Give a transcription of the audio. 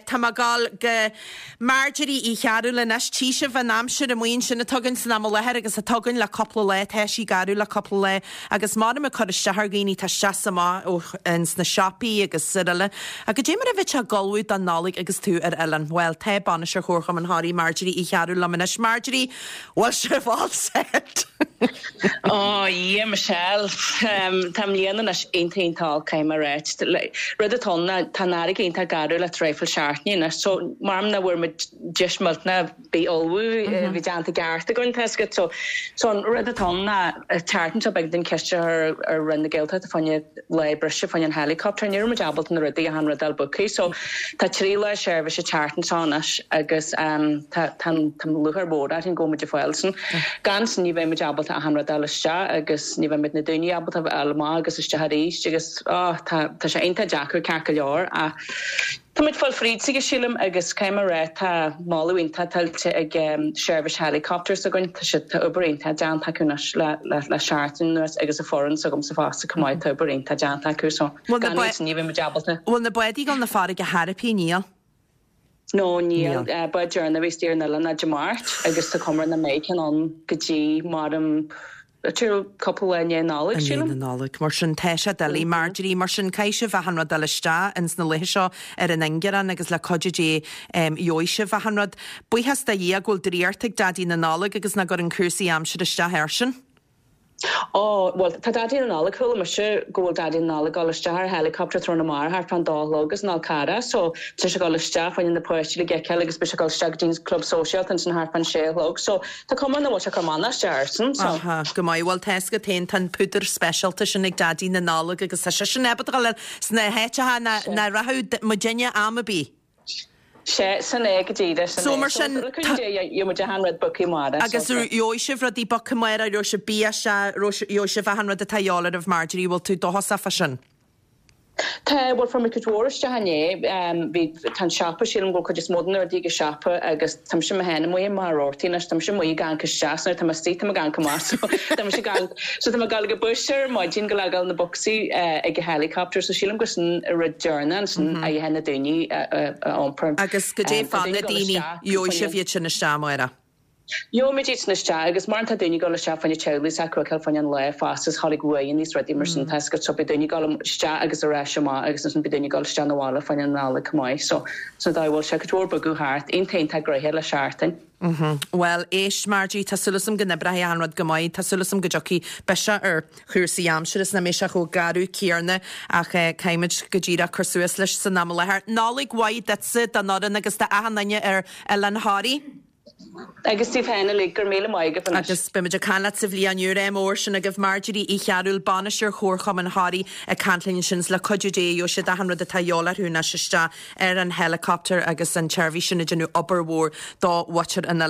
Tá mé ag dul go Marjorie Uí Chearúil anois. Tchí sibh an aimsir amuigh ansin atá againn san am i láthair agus atá againn le cúpla lá. Tá sí garbh le cúpla lá agus maram ag cur isteach ar dhaoine, tá isteach is amach ó ins na siopaí agus araile. Ach goidé mar a bheadh sé ag ullmhú don Nollaig agus tú ar oileán? Bhuel, tá Bainisteoir Chomharchumann Thoraí, Marjorie Uí Chearúil liom anois. Marjorie, bhfuil sibh all set? Ó, a Dhia, Michelle, tá an bhliain anois iontach iontach olc, caithfidh mé a ráit. Rud atá ann ná tá an fharraige iontach garbh le traidhfil seachtaine anois, so maram nach bhfuair muid deis millteanach bith ullmhú, bhí déanta i gceart againn, tá 'fhios agat. So, so an rud atá ann ná an tseachtain seo b'éigean dúinn ceist a chur ar Roinn na Gaeltachta fá choinne lá breise fá choinne an helicopter, ní raibh muid ábalta na rudaí achan rud a fháil booked, so tá 3 lá seirbhíse an tseachtain seo anois agus tá tá tá lúcháir mhór orainn go bhfuil muid ag fáil sin. Gan sin ní bheidh muid ábalta achan rud a fháil isteach agus ní bheidh muid na daoine ábalta a fháil amach agus isteach arís agus oh tá tá sé iontach deacair ceart go leor ach tá muid fáil fríd s'aige sílim agus caithfidh mé a rá tá moladh iontach tuillte ag seirbhís helicopter s'againn tá siad tá obair iontach déanta acu anois le le le seachtain anuas agus an foireann s'agamsa fosta chomh maith tá obair iontach déanta acu so gan iad sin ní bheidh muid ábalta. Bhfuil na bádaí ag dul 'na farraige chor ar bith níl? No, níl. Bád deireanach a bhí istigh ar an oileán ná Dé Máirt agus tá cuma air nach mbeidh ceann ann go dtí maram cúpla lá i ndiaidh Nollag, I ndiaidh sílim. na Nollag. Mar sin, tá sé doiligh, Marjorie. Mar sin, caithfidh sibh achan rud a fháil isteach ins na laethe seo ar an ingearán agus le cuidiú Dé gheobhaidh sibh achan rud. Buíochas do Dhia go bhfuil draíocht ag Daidí na Nollag agus nach gcuireann cúrsaí aimsire isteach airsean. Ó, bhuel, tá Daidí na Nollag, chuala mise go bhfuil Daidí na Nollag ag dul isteach ar helicopter tráthnóna amárach thart fán dó a chlog as an Fhál Carrach, so tá sé ag dul isteach fá choinne na páistí le feiceáil agus beidh sé ag dul isteach go dtí an club sóisialta ansin thart fán sé a chlog, so tá cuma nach bhfuil sé ag cur mannach isteach airsean, so. Aha, go maith, bhuel tá 'fhios agat féin, tá an púdar speisialta sin ag Daidí na Nollag agus tá seisean ábalta dul sna háiteacha nach rachadh muidinne am ar bith. Sea, sin é go díreach, sin So é. mar sin, So, le cúnamh Dé, gheobhaidh muid achan rud booked amárach, so. Agus gheobhaidh sibh rudaí booked amárach, gheobhaidh sibh bia isteach, gheobhaidh sibh achan rud atá a dhíobháil oraibh, Marjorie, bhfuil tú dóchasach fá sin? Tá, bhuel, fuair muid cuid mhór isteach inné, bhí, tá an siopa, sílim go bhfuil cuid is mó de na rudaí ag an siopa agus tá mise mé féin amuigh i mbarr ortaí anois, tá mise amuigh ag amharc isteach, so nuair atá mé istigh tá mé ag amharc amach, so tá mise ag amharc, so tá mé ag dul ag an bus ar maidin go le dhul na bocsaí ag an helicopter, so sílim gur sin an rud deireanach ansin a dhéanfaidh na daoine a iompar. Agus goidé fá na daoine, gheobhaidh sibh iad sin isteach amárach? Gheobhaimid iad sin isteach agus mar tá daoine ag dul isteach fá choinne teaghlaigh s'acu a fheiceáil fá choinne an lae fosta is tháinig uaigheanna is rudaí mar sin tá 'fhios agat so beidh daoine ag dul isteach agus ar ais amach agus ansin beidh daoine ag dul isteach 'na bhaile fá choinne an Nollaig chomh maith so sin an dóigh a bhfuil sé cuid mhór bogadh thart iontach iontach gnoitheach le seachtain. Bhuel, éist, Margie, tá súil agam go n-oibreoidh achan rud go maith, tá súil agam go dtiocfaidh biseach ar chúrsaí aimsire is nach mbeidh sé chomh garbh céarna ach caithfimid go díreach cur suas leis san am i láthair. Nollaig mhaith duitse, don fhoireann agus d'achan duine ar Oileán Thoraí. Agus daoibh féin uilig, go raibh míle maith agaibh anois. Agus beimid ag caint leat sa bhliain úr. Ádh mór sin agaibh. Marjorie Uí Chearúil, Bainisteoir Chomharchumann Thoraí ag caint linn ansin is le cuidiú Dé gheobhaidh siad achan rud atá a dhíobháil orthu anois isteach ar an helicopter agus an tseirbhís sin ag déanamh obair mhór do mhuintir an oileáin.